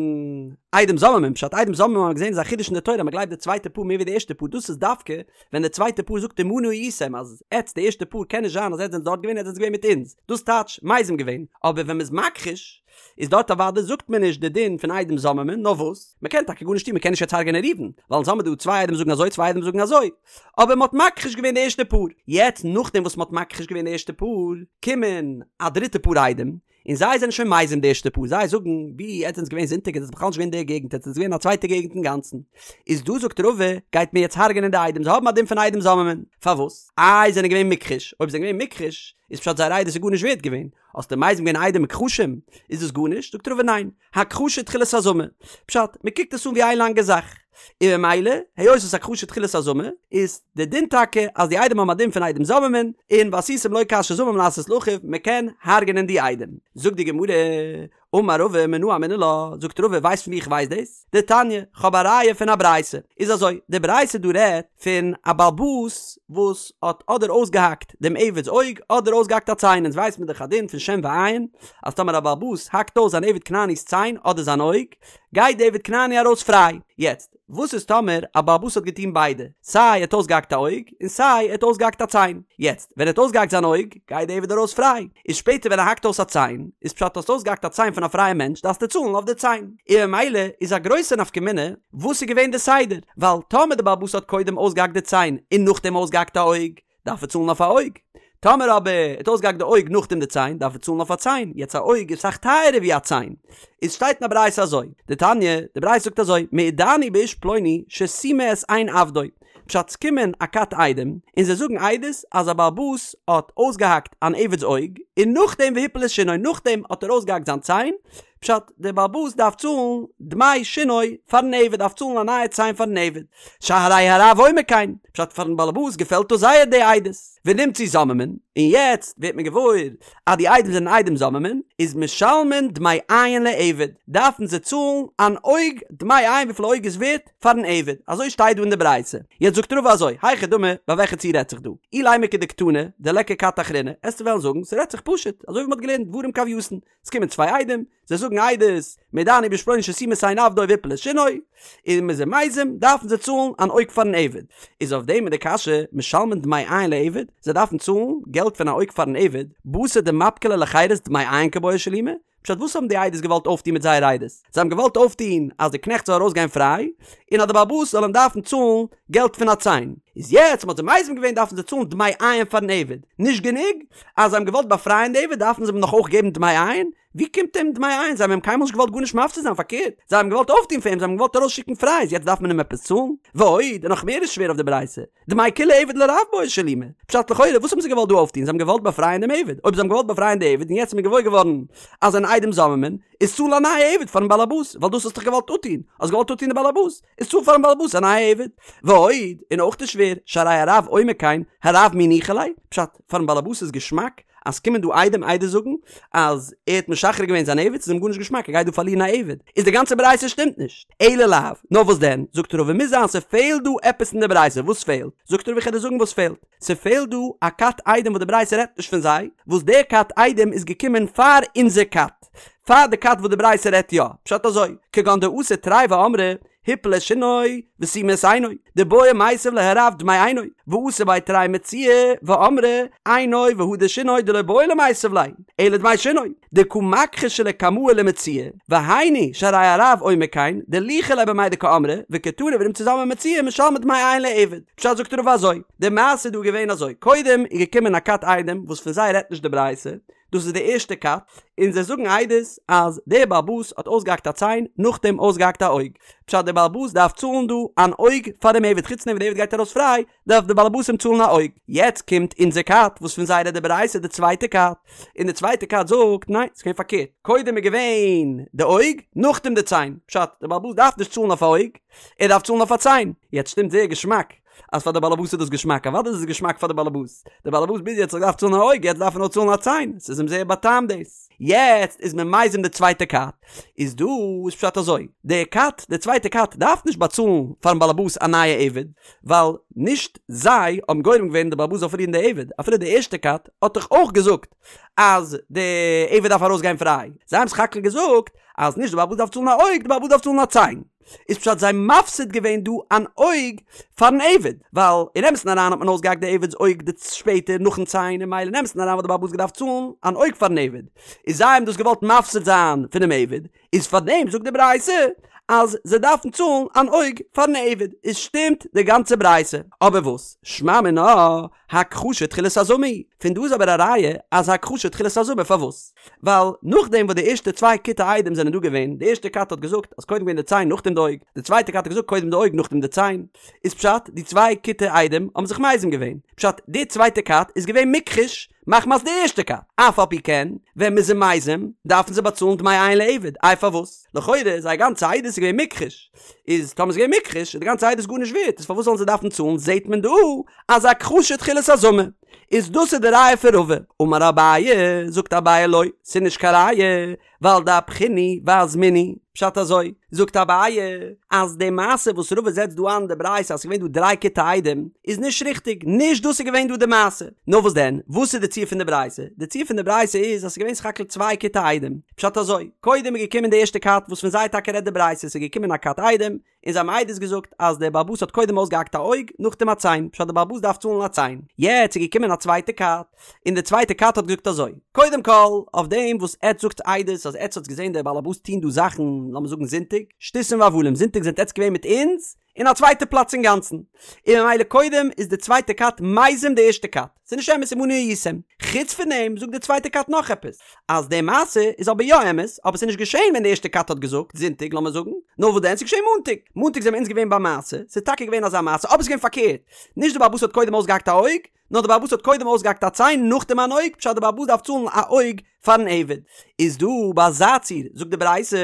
עדים זוממים, פשט עדים זוממים האבן מיר געזען איז א חידוש אין די תורה אז מ'גלייבט די צווייטע פאר מער ווי די ערשטע פאר, דאס איז דווקא ווען די צווייטע פאר זאגט עמנו הייתם אז עטץ די ערשטע פאר קען נישט זיין אז עטץ זענטס דארט געווען עטץ זענטס געווען מיט אונז, דאס טייטש מזים געווען, אבער ווען מ'איז מכחיש איז דארט אוודאי זאגט מען נישט די דין פון עדים זוממים, נאר וואס? מ'קען טאקע גארנישט טון מ'קען נישט יעצט הרג'ענען ראובן, ווייל אונז האמיר דא צוויי עדים זאגן אזוי צוויי עדים זאגן אזוי, אבער מ'האט מכחיש געווען די ערשטע פאר, יעצט נאכדעם וואס מ'האט מכחיש געווען די ערשטע פאר, קומען א דריטע פאר עדים, און זיי זענען שוין מזים די ערשטע פאר, זיי זאגן, ווי עטס זענטס געווען זונטאג עטס זענטס בכלל נישט געווען אין די געגנט עטס זענטס געווען אין א צווייטע געגנט אינגאנצן, איז דא זאגט רבא, גייט מען יעצט הרג'ענען די עדים, זיי האבן א דין פון עדים זוממים, פארוואס? איי זענען געווען מוכחש, אויב זענען געווען מוכחש, איז פשט זייער עדות איז גארנישט ווערט געווען, האסטו מזים געווען עדים מוכחשים, איז דאס גארנישט? זאגט רבא ניין, הכחשה תחילת הזמה, פשט, מען קוקט עס אן ווי איין לאנגע זאך, און ממילא, היות עס איז הכחשה תחילת הזמה, איז די דין טאקע אז די עדים האבן א דין פון עדים זוממין, און ועשיתם לו כאשר זמם לעשות לאחיו, מען קען הרג'נען די עדים. זאגט די גמרא, אמר רבא מנא אמינא לה, זאגט רבא ווייסט פון ווי איך ווייס דאס? דתניא, כ'האב א ראיה פון א ברייתא. איז אזוי, די ברייתא דא רעדט פון א בעל הבית וואס האט אדער אויסגעהאקט דעם עבד'ס אויג אדער אויסגעהאקט א ציין, אונז ווייס מיר דאך א דין פון שן ועין, אז טאמער א בעל הבית האקט אויס זיין עבד כנעני'ס ציין אדער זיין אויג, גייט די עבד כנעני ארויס פריי. יעצט, וואס איז טאמער א בעל הבית האט געטון ביידע, סיי ער האט אויסגעהאקט א אויג, און סיי ער האט אויסגעהאקט א ציין. יעצט, ווען ער האט אויסגעהאקט זיין אויג, גייט די עבד ארויס פריי. איז שפעטער ווען ער האקט אויס א ציין, איז פשט האסט אויסגעהאקט א ציין פון א פרייע מענטש דארפסטו צאלן אויף די ציין. און ממילא איז א גרויסע נפקא מינה וואס איז געווען די סדר, ווייל טאמער די בעל הבית האט קודם אויסגעהאקט די ציין און נאכדעם אויסגעהאקט א אויג, דארף ער צאלן אויף א אויג. טאמער אבער ער האט אויסגעהאקט די אויג נאכדעם די ציין, דארף ער צאלן אויף א ציין. יעצט א אויג איז אסאך טייערער ווי א ציין. איז שטייט אין א ברייתא אזוי, דתניא, די ברייתא זאגט אזוי, מעידני באיש פלוני שסימא את עין עבדו. פשט ס'קומען א כת עדים, און זיי זאגן עדות אז א בעל הבית האט אויסגעהאקט אן עבד'ס אויג, און נאכדעם והפיל את שינו, נאכדעם האט ער אויסגעהאקט זיין ציין, פשט, דער בעל הבית דארף צאלן דמי שינו פארן עבד, דארף צאלן א נייע ציין פארן עבד. שהרי הרב אומר כן, פשט פארן בעל הבית געפעלט דאס זייער די עדות, ונמצאו זוממין, און יעצט ווערט מען געוואויר אז די עדים זענען עדים זוממין, איז משלמין דמי עין לעבד, דארפן זיי צאלן אן אויג דמי עין וויפיל א אויג איז ווערט פארן עבד, אזוי שטייט דא אין די ברייתא. יעצט זאגט רבא אזוי, היכי דמי, ביי וועלכע ציור רעדט זיך דא? אילימא כדקתני, דליכא כת אחרינא, עסטו וועלן זאגן ס'רעדט זיך פשוט, אזוי ווי מ'האט געלערנט דברים כהווייתן, עס קומען צוויי עדים, זיי זאגן עדות, מעידני באיש פלוני שסימא את עין עבדו והפיל את שינו, און מ'איז זיי מזים, דארפן זיי צאלן אן אויג פארן עבד. איז אויף דעם איז די קשיא, משלמין דמי עין לעבד, זיי דארפן צאלן געלט פון א אויג פארן עבד, בתר דמפקי ליה לחירות דמי עין קבעי שלומי? פשט וואס האבן די עדות געוואלט אויפטון מיט זייער עדות? זיי האבן געוואלט אויפטון אז די קנעכט זאל ארויסגיין פריי, און אז די בעל הבית זאל אים דארפן צאלן געלט פון א ציין. איז יעצט מ'האט זיי מזים געווען דארפן זיי צאלן דמי עין פארן עבד. נישט גענוג אז זיי האבן געוואלט באפרייען די עבד דארפן זיי אים נאך אויך געבן דמי עין? ווי קומט אים דמי עין? זיי האבן אים קיינמאל נישט געוואלט גארנישט מפסיד זיין פארקערט זיי האבן געוואלט אויפטון פאר אים זיי האבן געוואלט ארויסשיקן פריי איז יעצט דארף מען אים עפעס צאלן? ועוד, און נאך מער איז שווער אויף די ברייתא, דמי כולי עבד לרב בעי שלומי. פשט לכאורה וואס האבן זיי געוואלט דא אויפטון? זיי האבן געוואלט באפרייען דעם עבד. אויב זיי האבן געוואלט באפרייען די עבד און יעצט איז מען געוואויר געווארן אז זענען עדים זוממין, איז צאל א נייע עבד פארן בעלעבאס, ווייל דאס האסטו דאך געוואלט אפטון, האסט געוואלט אפטון די בעלעבאס, איז צאל פארן בעלעבאס א נייע עבד. ועוד, און אויך איז שווער, שהרי הרב אומר כן, הרב מי ניחא ליה? פשט, פארן בעלעבאס איז געשמאק אז ס'קומען דא עדים עדות זאגן אז ער האט משחרר געווען זיין עבד, ס'איז אים גארנישט געשמאק ער גייט דא פארלירן א עבד, איז די גאנצע ברייתא שטימט נישט. אלא לאו, נאר וואס דען, זאגט רבא מוז זיין ס'פעלט דא עפעס אין די ברייתא, וואס פעלט? זאגט רבא איך וועל דיר זאגן וואס פעלט, ס'פעלט דא א כת עדים וואס די ברייתא רעדט נישט פון זיי, וואס דער כת עדים איז געקומען פאר אונזער כת, פאר די כת וואס די ברייתא רעדט יא, פשט אזוי, כגון דאתו תרי ואמרי, הפיל את שינו וסימא את עינו, דבעי מיתב ליה הרב דמי עינו, ואתו בי תרי מציעאי ואמרי עינו והדר שינו דלא בעי למיתב ליה, אלא דמי שינו, דקא מכחשי לקמאי למציעאי, והיינו שהרי הרב אומר כן, דניחא ליה במאי דקאמרי, וקתני ונמצאו זוממין מציעאי משלמין דמי עין לעבד. פשט זאגט רבא אזוי, די מעשה איז דא געווען אזוי, קודם איז געקומען א כת עדים וואס פון זיי רעדט נישט די ברייתא, דאס איז די ערשטע כת, און זיי זאגן עדות אז דער בעל הבית האט אויסגעהאקט א ציין, נאכדעם אויסגעהאקט א אויג. פשט דער בעל הבית דארף צאלן דא אן אויג פאר דעם עבד, חוץ דעם ווען דער עבד גייט ארויס פריי, דארף דער בעל הבית אים צאלן א אויג. יעצט קומט אונזער כת, וואס פון זיי רעדט די ברייתא, די צווייטע כת, און די צווייטע כת זאגט, ניין, ס'איז געווען פארקערט, קודם איז געווען די אויג, נאכדעם די ציין. פשט, דער בעל הבית דארף נישט צאלן אויף א אויג, ער דארף צאלן אויף א ציין. יעצט שטימט זייער געשמאק אז פאר די באלעבאס איז דאס געשמאק, אוודאי איז עס געשמאק פאר די באלעבאס, די באלעבאס ביז יעצט האט געדארפט צאלן א אויג, יעצט דארף ער נאר צאלן א ציין, ס'איז אים זייער באטעמט דאס. יעצט איז מען מזים די צווייטע כת, איז דא איז פשט אזוי, די כת, די צווייטע כת דארף נישט באצאלן פארן באלעבאס א נייע עבד, ווייל נישט זיי האבן גורם געווען די באלעבאס זאל פארלירן די עבד, אפילו די ערשטע כת האט דאך אויך געזאגט אז די עבד דארף ארויסגיין פריי, זיי האבן סך הכל געזאגט אז נישט די באלעבאס דארף צאלן א אויג, די באלעבאס דארף צאלן א ציין. איז פשט זיי מפסיד געווען דא אן אויג פארן עבד, ווייל אין אמת'ן אריין האט מען אויסגעהאקט די עבד'ס אויג די שפעטער נאכן ציין און ממילא אין אמת'ן אריין וואלט די בעל הבית געדארפט צאלן אן אויג פארן עבד, איז זיי האבן דאס געוואלט מפסיד זיין פונעם עבד, איז פארדעם זאגט די ברייתא אז זיי דארפן צאלן אן אויג פארן עבד, איז שטימט די גאנצע ברייתא, אבער וואס? שמע מינה הכחשה תחילת הזמה היא, פון דא איז אבער א ראיה אז הכחשה תחילת הזמה, פארוואס? ווייל נאכדעם וואס די ערשטע צוויי כיתי עדים זענען דא געווען, די ערשטע כת האט געזאגט אז קודם געווען די ציין נאכדעם די אויג, די צווייטע כת האט געזאגט קודם די אויג נאכדעם די ציין, איז פשט די צוויי כיתי עדים האבן זיך מזים געווען, פשט די צווייטע כת איז געווען מוכחש מחמת די ערשטע כת, אף על פי כן ווען מ'איז זיי מזים דארפן זיי באצאלן דמי עין לעבד, איי פארוואס? לכאורה זייער גאנצע עדות איז געווען מוכחש, איז טאמער איז געווען מוכחש איז די גאנצע עדות גארנישט ווערט, איז פארוואס זאלן זיי דארפן צאלן, זעט מען דא אז הכחשה תחילת הזמה. איז דאס איז די ראיה פון רבא. אמר אביי, זאגט אביי לא, ס'איז נישט קיין ראיה, ווייל דאפכינהו ואזמינהו, פשט אזוי, זאגט אביי, אז די מעשה וואס רבא זעצט דא איין די ברייתא אז ס'איז געווען דא דריי כיתי עדים, איז נישט ריכטיג, נישט דאס איז געווען דא די מעשה. נאר וואס דען, וואס איז די ציור פון די ברייתא? די ציור פון די ברייתא איז אז ס'איז געווען סך הכל צוויי כיתי עדים. פשט אזוי, קודם איז געקומען די ערשטע כת וואס פון זיי טאקע רעדט די ברייתא, ס'איז געקומען א כת עדים, און זיי האבן עדות געזאגט אז דער בעל הבית האט קודם אויסגעהאקט א אויג נאכדעם א ציין, פשט דער בעל הבית דארף צאלן א ציין. יעצט איז געקומען א צווייטע כת, און די צווייטע כת האט געזאגט אזוי, קודם כל, אויף דעם וואס עטץ זאגטס עדות אז עטץ האטס געזען דער בעל הבית טון דא זאכן, לאמיר זאגן זונטאג, שטותים והבלים, זונטאג זענט עטץ געווען מיט אונז אין א צווייטע פלאץ אינגאנצן, און ממילא קודם איז די צווייטע כת מזים די ערשטע כת. ס'איז נישט אמת עמנו הייתם. חוץ פון דעם זאגט די צווייטע כת נאך עפעס, אז די מעשה איז אבער יא אמת, אבער ס'איז נישט געשען ווען די ערשטע כת האט געזאגט, זונטאג לאמיר זאגן, נאר וואס דען ס'איז געשען מאנטאג. מאנטאג זעמיר אונז געווען ביים מעשה, ס'איז טאקע געווען אזא מעשה, אבער ס'איז געווען פארקערט, נישט די בעל הבית האט קודם אויסגעהאקט א אויג, נאר די בעל הבית האט קודם אויסגעהאקט א ציין נאכדעם אן אויג, פשט די בעל הבית דארף צאלן א אויג פארן עבד. איז דא ביי אזא ציור זאגט די ברייתא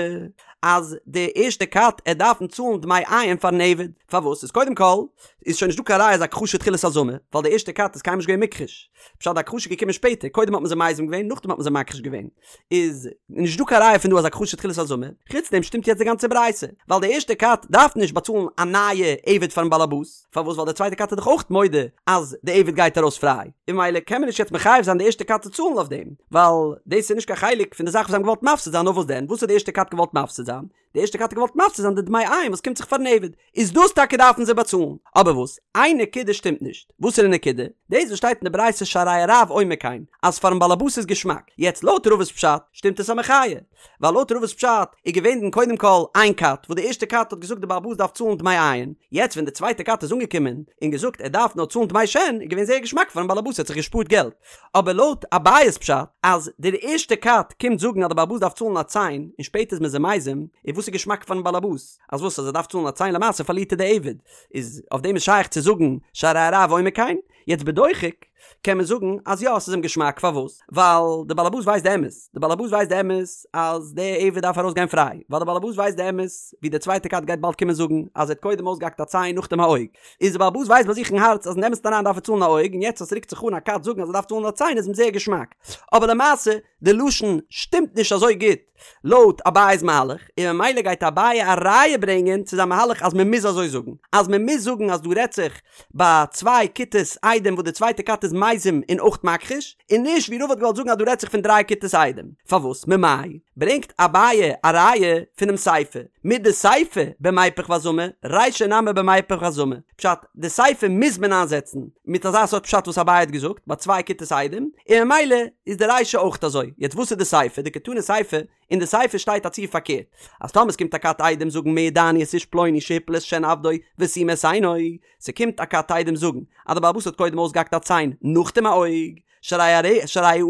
אז די ערשטע כת עט דארפן צאלן דמי עין פארן עבד, פארוואס? איז קודם כל איז שוין נישטא קיין ראיה אז הכחשה תחילת הזמה, ווייל די ערשטע כת איז קיינמאל נישט געווען מוכחש, פשט די הכחשה איז געקומען שפעטער, קודם האט מען זיי מזים געווען נאכדעם האט מען זיי מכחיש געווען, איז נישט דא קיין ראיה פון דא אז הכחשה תחילת הזמה, חוץ דעם שטימט יעצט די גאנצע ברייתא, ווייל די ערשטע כת דארף נישט באצאלן א נייע עבד פארן בעלעבאס, פארוואס ווייל די צווייטע כת איז דאך אויך מודה אז די עבד גייט ארויס פריי, און ממילא קען מען נישט יעצט מחייב זיין די ערשטע כת צו צאלן אויף דעם, ווייל דאס איז נישט קיין חלק פון די זאך וואס זיי האבן געוואלט מפסיד זיין, נאר וואס דען, וואס האט די ערשטע כת געוואלט מפסיד זיין? די ערשטע כת האט געוואלט מפסיד זיין די דמי עין וואס קומט זיך פארן עבד, איז דאס טאקע דארפן זיי באצאלן, אבער. אבער וואס? איין נקודה שטימט נישט. וואסערע נקודה? דאס וואס שטייט אין די ברייתא שהרי הרב אומר כן, אז פארן באלעבאס איז געשמאק. יעצט לויט רבא'ס פשט שטימט עס א מחיה. ווייל לויט רבא'ס פשט איז געווען קודם כל איין כת וואס די ערשטע כת האט געזאגט די בעל הבית דארף צאלן דמי עין, יעצט ווען די צווייטע כת איז אנגעקומען און געזאגט ער דארף נאר צאלן דמי שן איז געווען זייער געשמאק פארן בעל הבית ער האט זיך געשפארט געלט. אבער לויט אביי'ס פשט אז דער ערשטע כת קומט זאגן אז די בעל הבית דארף צאלן א ציין און שפעטער איז מען זיי מזים, איז וואס איז געשמאק פארן בעל הבית? אז וואס אז ער דארף צאלן א ציין למעשה פארלירט ער די עבד, איז אויף דעם איז שייך צו זאגן שהרי הרב אומר כן? יעצט בדוחק קען מען זאגן אז יא ס'איז אים געשמאק פארוואס? ווייל די בעל הבית ווייסט די אמת, די בעל הבית ווייסט די אמת אז די עבד דארף ארויס גיין פריי, ווייל די בעל הבית ווייסט די אמת ווי די צווייטע כת גייט באלד קומען זאגן אז ער האט קודם אויסגעהאקט א ציין נאכדעם א אויג, איז די בעל הבית ווייסט ביי זיך אין הארץ אז אין אמת'ן אריין דארף ער צאלן א אויג און יעצט אז ס'רוקט זיך אן א כת זאגן אז ער דארף צאלן א ציין איז אים זייער געשמאק, אבער למעשה די לשון שטימט נישט אזוי גוט לויט אביי'ס מהלך, און ממילא גייט אביי א ראיה ברענגען צו זיין מהלך אז מען מוז אזוי זאגן, אז מען מוז זאגן אז דא רעדט זיך ביי צוויי כיתות עדים וואס די צווייטע כת איז מזים און אויך מכחיש, און נישט ווי רבא האט געוואלט זאגן אז דא רעדט זיך פון דריי כיתות עדים. פארוואס? ממאי? ברענגט אביי א ראיה פונעם סיפא, מדסיפא במיפך והזמה, רישא נמי במיפך והזמה. פשט, די סיפא מוז מען איינזעצן מיט אזא סארט פשט וואס אביי האט געזאגט ביי צוויי כיתות עדים, און ממילא איז די רישא אויך אזוי. יעצט וואס איז די סיפא? דקתני סיפא, אין די סיפא שטייט א ציור פארקערט, אז טאמער ס'קומט א כת עדים זאגן מעידני את איש פלוני שהפיל את שן עבדו וסימא את עינו, ס'קומט א כת עדים זאגן אז די בעל הבית האט קודם אויסגעהאקט א ציין נאכדעם א אויג, שהרי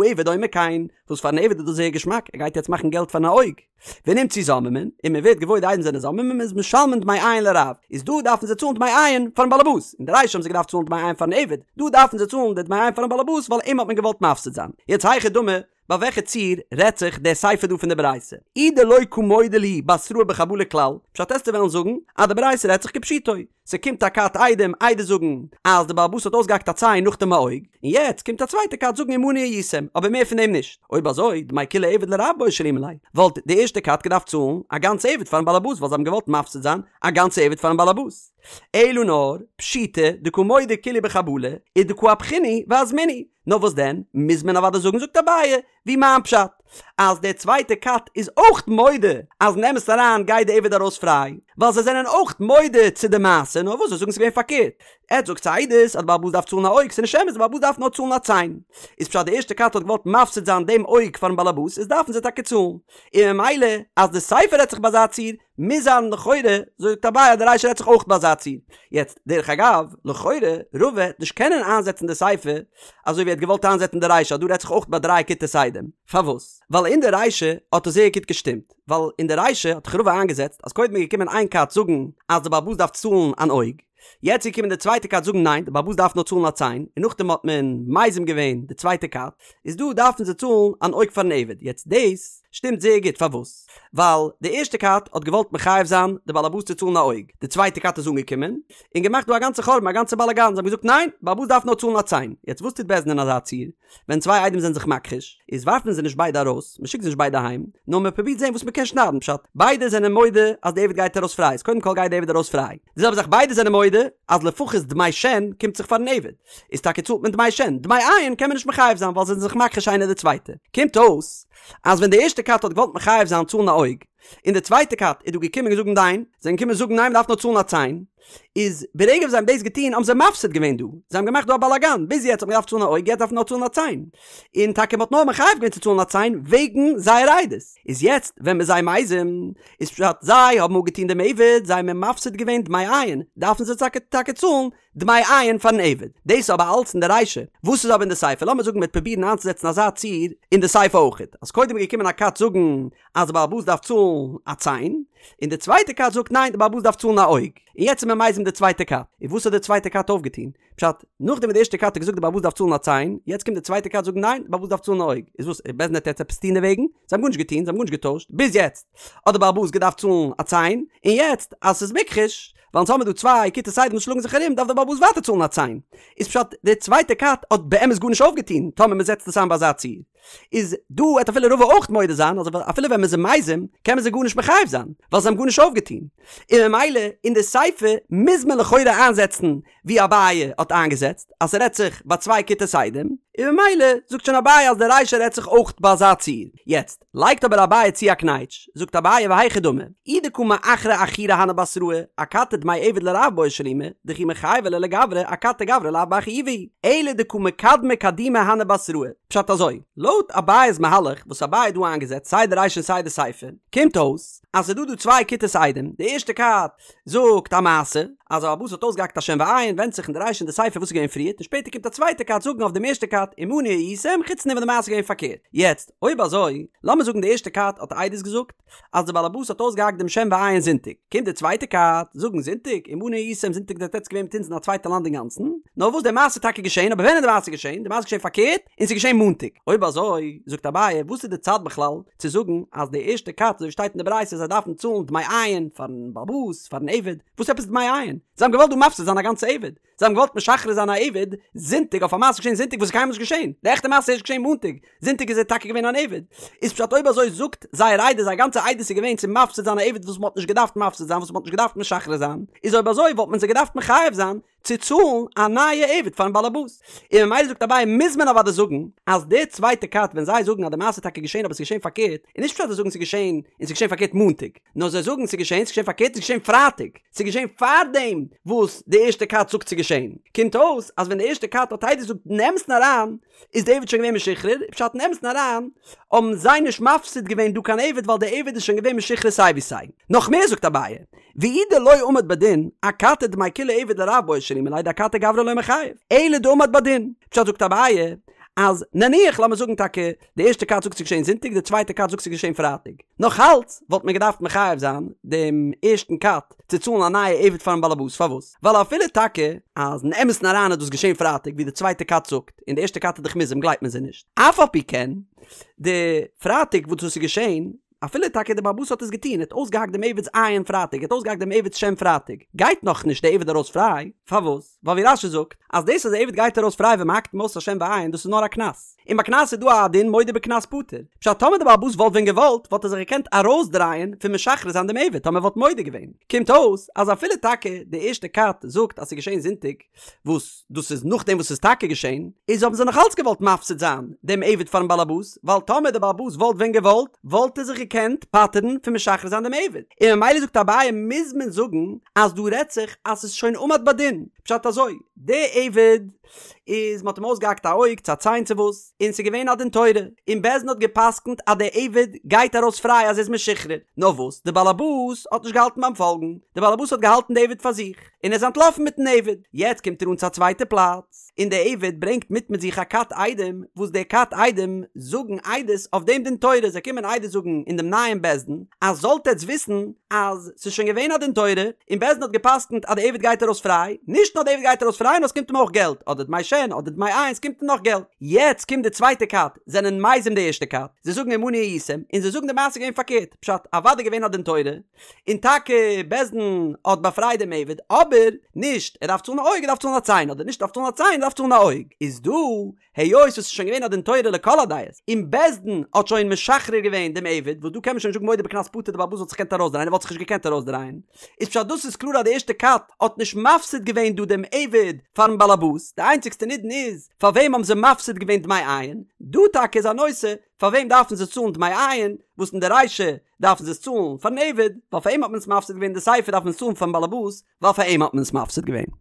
העבד אומר כן, וואס פארן עבד איז דאס זייער געשמאק, ער גייט יעצט מאכן געלט פארן אויג. ונמצאו זוממין, און מען ווערט געוואויר די עדים זענען זוממין, איז משלמין דמי עין לרב, איז דא דארפן זיי צאלן דמי עין פארן באלעבאס, אין די רישא האבן זיי געדארפט צאלן דמי עין פארן עבד, דא דארפן זיי צאלן די דמי עין פארן באלעבאס ווייל אים האט מען געוואלט מפסיד זיין. יעצט היכי דמי, ביי וועלכע ציור רעדט זיך די סיפא דא פון די ברייתא? אי דלא קא מודה להו בתראה בחבלה כלל, פשט עסטו וועלן זאגן אז די ברייתא רעדט זיך כפשוטו, ס'קומט א כת עדים עדות זאגן אז די בעל הבית האט אויסגעהאקט א ציין נאכדעם א אויג, און יעצט קומט א צווייטע כת זאגן עמנו הייתם, אבער מער פון דעם נישט. אויב אזוי, דמי כולי עבד לרב בעי שלומי ליה, וואלט די ערשטע כת געדארפט צאלן א גאנצע עבד פארן בעל הבית ווייל זיי האבן געוואלט מפסיד זיין א גאנצע עבד פארן בעל הבית. אלא נאר, פשיטא דקא מודו כולהו בחבלה, ודקא אפכינהו ואזמינהו. נאר וואס דען, מוז מען אוודאי זאגן זאגט אביי, ווי מיין פשט, אז דער צווייטער כת איז אויך מודה אז אין אמת אריין גייט די עבד ארויס פריי, ווייל זיי זענען אויך מודה צו די מעשה, נאר וואס זיי זאגן ס'איז געווען פארקערט. עטס זאגטס עדות אז די בעל הבית דארף צאלן א אויג, ס'איז נישט אמת, די בעל הבית דארף נאר צאלן א ציין. איז פשט די ערשטע כת האט געוואלט מפסיד זיין דעם אויג פארן בעל הבית, איז דארפן זיי טאקע צאלן. און ממילא אז די סיפא רעדט זיך ביי אזא ציור, מוז זיין לכאורה, זאגט אביי אז די רישא רעדט זיך אויך ביי אזא ציור. יעצט, דרך אגב, לכאורה, רבא העט נישט קענען איינזעצן די סיפא אזוי ווי ער האט געוואלט איינזעצן די רישא אז דא רעדט זיך אויך ביי דריי כיתות עדים. פארוואס? ווייל אין די רישא האט עס זייער גוט געשטימט. ווייל אין די רישא האט דאך רבא איינגעזעצט אז קודם איז געקומען איין כת זאגן אז די בעל הבית דארף צאלן אן אויג, יעצט איז געקומען די צווייטע כת זאגן ניין די בעל הבית דארף נאר צאלן א ציין, און נאכדעם האט מען מזים געווען די צווייטע כת, איז דא דארפן זיי צאלן אן אויג פארן עבד, יעצט דאס שטימט זייער גוט פארוואס? ווייל די ערשטע כת האט געוואלט מחייב זיין די בעל הבית צו צאלן א אויג, די צווייטע כת איז אנגעקומען און געמאכט דא א גאנצע חורבן א גאנצע באלאגאן, זיי האבן געזאגט ניין, בעל הבית דארף נאר צאלן א ציין, יעצט וואס טוט בית דין אין אזא ציור? ווען צוויי עדים זענען זיך מכחיש, איז ווארפט מען זיי נישט ביידע ארויס, מען שיקט זיי נישט ביידע אהיים, נאר מען פרובירט זען וואס מען קען שניידן, פשט, ביידע זענען מודה אז די עבד גייט ארויס פריי, איז קודם כל גייט די עבד ארויס פריי, די זעלבע זאך ביידע זענען מודה אז לפחות דמי שן קומט זיך פארן עבד, איז טאקע צאלט מען דמי שן, דמי עין קען מען נישט מחייב זיין ווייל זיי זענען זיך מכחיש איינער די צווייטע, קומט אויס אז ווען די ערשטע כת האט געוואלט מחייב זיין צאלן א אויג, און די צווייטע כת איז דא געקומען און געזאגט ניין, זיי זענען געקומען זאגן ניין מען דארף נאר צאלן א ציין, איז ברגע וואס זיי האבן דאס געטון האבן זיי מפסיד געווען דא, זיי האבן געמאכט דא א באלאגאן, ביז יעצט האט מען געדארפט צאלן א אויג יעצט דארף מען נאר צאלן א ציין, און טאקע מען האט נאר מחייב געווען צו צאלן א ציין וועגן זייער עדות, איז יעצט ווען מ'איז זיי מזים, איז פשט זיי האבן אפגעטון דעם עבד, זיי האבן מפסיד געווען דמי עין, דארפן זיי טאקע טאקע צאלן דמי עין פארן עבד, דאס איז אבער אלץ אין די רישא, וואס איז אבער אין די סיפא, לאמיר זאגן מ'וועט פרובירן איינצוזעצן אזא ציור אין די סיפא אויכעט, אז קודם איז געקומען א כת זאגן אז די בעל הבית דארף צאלן א ציין, און די צווייטע כת זאגט ניין די בעל הבית דארף צאלן א אויג, און יעצט איז מען מזים די צווייטע כת, און וואס האט די צווייטע כת אויפגעטון? פשט, נאכדעם וואס די ערשטע כת האט געזאגט די בעל הבית דארף צאלן א ציין, יעצט קומט די צווייטע כת זאגן ניין די בעל הבית דארף צאלן א אויג, איז וואס, בית דין וועט יעצט עפעס טון דערוועגן? זיי האבן גארנישט געטון, זיי האבן גארנישט געטוישט, ביז יעצט האט די בעל הבית געדארפט צאלן א ציין, און יעצט אז ס'איז מוכחש, ווייל אונז האמיר דא צוויי כיתות עדים וואס שלאגן זיך ארום דארף דער בעל הבית ווייטער צאלן א ציין. איז פשט די צווייטע כת האט באמת גארנישט אויפגעטון טאמער מען זעצט עס איין ביי אזא ציור. איז דא וועט אפילו רבא אויך מודה זיין אז אפילו ווען מען איז מזים קען מען זיי גארנישט מחייב זיין ווייל זיי האבן גארנישט אויפגעטון. און ממילא אין די סיפא מוז מען לכאורה איינזעצן ווי אביי האט איינגעזעצט אז ס'רעדט זיך ביי צוויי כיתות עדים. און ממילא זאגט שוין אביי אז די רישא רעדט זיך אויך ביי אזא ציור. יעצט, לייגט אבער אביי צו א קנייטש, זאגט אביי והיכי דמי, אי דקא מאחרי אחוריה הני בתראי, אכתי דמי עבד לרב בעי שלומי, דכי מחייבי ליה לגברא, אכתי גברא לאו בר חיובא הוא, אלא דקא מקדמי קדומי הני בתראי. פשט אזוי, לויט אביי'ס מהלך וואס אביי האט דא איינגעזעצט סיי די רישא און סיי די סיפא, קומט אויס אז ס'איז דא דא צוויי כיתות עדים, די ערשטע כת זאגט א מעשה, אז א בעל הבית האט אויסגעהאקט א שן ועין, ווענדט זיך אין די רישא און די סיפא וואס איז געווען פריערט, און שפעטער קומט א צווייטע כת זאגן אויף דעם ערשטע כת עמנו הייתם, חוץ דעם וואס די מעשה איז געווען פארקערט. יעצט, אויב אזוי, לאמיר זאגן די ערשטע כת האט עדות געזאגט אז די בעל הבית האט אויסגעהאקט דעם שן ועין זונטאג, קומט די צווייטע כת זאגן זונטאג, עמנו הייתם זונטאג זענט עטץ געווען מיט אונז אין א צווייטע לאנד אינגאנצן, נאר וואס די מעשה איז טאקע געשען, אבער ווען איז די מעשה געשען? די מעשה איז געשען פארקערט, און ס'איז געשען מאנטאג. אויב אזוי, זאגט אביי, וואס איז די צד בכלל צו זאגן אז די ערשטע כת אזוי ווי שטייט אין די ברייתא זיי דארפן צאלן דמי עין פארן בעל הבית, פארן עבד, וואס עפעס דמי עין? זיי האבן געוואלט דא מפסיד זיין א גאנצע עבד, זיי האבן געוואלט משחרר זיין א עבד זונטאג אויף א מעשה געשען זונטאג וואס איז קיינמאל נישט געשען, די עכטע מעשה איז ערשט געשען מאנטאג, זונטאג איז ער טאקע געווען אן עבד. איז פשט אויב אזוי זאגט זייער עדות זייער גאנצע עדות איז געווען צו מפסיד זיין א עבד וואס מ'האט נישט געדארפט מפסיד זיין וואס מ'האט נישט געדארפט משחרר זיין, איז אויב אזוי וואלט מען זיי געדארפט מחייב זיין צו צאלן א נייע עבד פארן באלעבאס. און ממילא זאגט אביי מוז מען אוודאי זאגן אז די צווייטע כת ווען זיי זאגן אז די מעשה איז טאקע געשען אבער ס'איז געשען פארקערט, איז נישט פשט אז זיי זאגן ס'איז געשען און ס'איז געשען פארקערט מאנטאג, נאר זיי זאגן ס'איז געשען, ס'איז געשען פארקערט, ס'איז געשען פרייטאג, ס'איז געשען פארדעם וואס די ערשטע כת זאגט ס'איז געשען. קומט אויס אז ווען די ערשטע כת האט עדות געזאגט אין אמת'ן אריין איז די עבד שוין געווען משוחרר, פשט אין אמת'ן אריין האבן זיי נישט מפסיד געווען דא קיין עבד ווייל די עבד איז שוין געווען משוחרר סיי ווי סיי. נאך מער זאגט אביי, ואי דלא עמד בדין, אכתי דמי כולי עבד לרב בעי שלומי ליה דאכתי גברא לא מיחייב, אלא דעמד בדין. פשט זאגט אביי, אז נניח לאמיר זאגן טאקע די ערשטע כת זאגט ס'איז געשען זונטאג די צווייטע כת זאגט ס'איז געשען פרייטאג, נאך אלץ וואלט מען געדארפט מחייב זיין דעם ערשטן כת צו צאלן א נייע עבד פארן באלעבאס, פארוואס? ווייל אפילו טאקע אז אין אמת'ן אריין איז דאס געשען פרייטאג ווי די צווייטע כת זאגט, און די ערשטע כת איז דאך מוזם גלייבט מען זיי נישט, אף על פי כן די פרייטאג וואס דאס איז געשען, אפילו טאקע די באלעבאס האט עס געטון, ער האט אויסגעהאקט דעם עבד'ס עין פרייטאג, ער האט אויסגעהאקט דעם עבד'ס שן פרייטאג, גייט נאכנישט די עבד ארויס פריי, פארוואס? ווייל ווי רש"י זאגט, אז דאס אז די עבד גייט ארויס פריי ווען מ'האקט אים אויס א שן ועין דאס איז נאר א קנס, און ביי קנס איז דא א דין מודה בקנס פטור, פשט טאמער די בעל הבית וואלט ווען געוואלט וואלט ער זיך געקענט ארויסדרייען פון משחרר זיין דעם עבד טאמער ער וואלט מודה געווען, קומט אויס אז אפילו טאקע די ערשטע כת זאגט אז ס'איז געשען זונטאג, וואס דאס איז נאכדעם וואס ס'איז טאקע געשען, איז האבן זיי נאך אלץ געוואלט מפסיד זיין דעם עבד פארן באלעבאס, ווייל טאמער דער באלעבאס וואלט ווען געוואלט, וואלט ער זיך געקענט פטר'ן פון משחרר זיין דעם עבד. און ממילא זאגט אביי מוז מען זאגן אז דא רעדט זיך אז ס'איז שוין עמד בדין, פשט אזוי, דער עבד איז מ'האט אים אויסגעהאקט א אויג צו א ציין צו וואס, און ס'איז געווען א דין תורה, און בית דין האט גע'פסק'נט אז דער עבד גייט ארויס פריי אז ער איז משוחרר, נאר וואס, דער באלעבאס האט נישט געהאלטן ביים פאלגן, דער באלעבאס האט געהאלטן די עבד פאר זיך. און ער איז אנטלאפן מיטן עבד. יעצט קומט ער אן צו א צווייטע פלאץ, און דער עבד ברענגט מיט מיט זיך א כת עדים, וואס די כת עדים זאגן עדות אויף דעם דין תורה, זיי קומען עדות זאגן אין דעם נייעם בית דין, אז זאלט עטץ וויסן אז ס'איז שוין געווען א דין תורה, און בית דין האט גע'פסק'נט אז דער עבד גייט ארויס פריי, נישט נאר דער עבד גייט ארויס פריי, נאר ס'קומט אים אויך געלט, אדער דמי שן, אדער דמי עין, ס'קומט אים נאך געלט. יעצט קומט די צווייטע כת, זענען מזים די ערשטע כת, זיי זאגן עמנו הייתם, און זיי זאגן די מעשה איז געווען פארקערט, פשט, אוודאי געווען א דין תורה, און טאקע בית דין האט באפרייט דעם עבד, אבער נישט ער דארף צאלן א אויג ער דארף צאלן א ציין, אדער נישט ער דארף צאלן א ציין ער דארף צאלן א אויג, איז דא היות עס איז שוין געווען א דין תורה לכל הדעות, און בית דין האט שוין משחרר געווען דעם עבד, וואס דא קען מען שוין נישט זאגן מודה בקנס פטור די בעל הבית וואלט זיך געקענט ארויסדרייען ער וואלט זיך נישט געקענט ארויסדרייען, איז פשט דאס איז קלאר אז די ערשטע כת האט נישט מפסיד געווען דא דעם עבד פארן בעלעבאס, די איינציגסטע נידון איז פאר וועם האבן זיי מפסיד געווען דמי עין, דא טאקע איז א נושא פאר וועם דארפן זיי צאלן דמי עין, וואס אין די רישא דארפן זיי עס צאלן פארן עבד, ווייל פאר אים האט מען עס מפסיד געווען, די סיפא דארף מען עס צאלן פארן באלעבאס, ווייל פאר אים האט מען עס מפסיד געווען.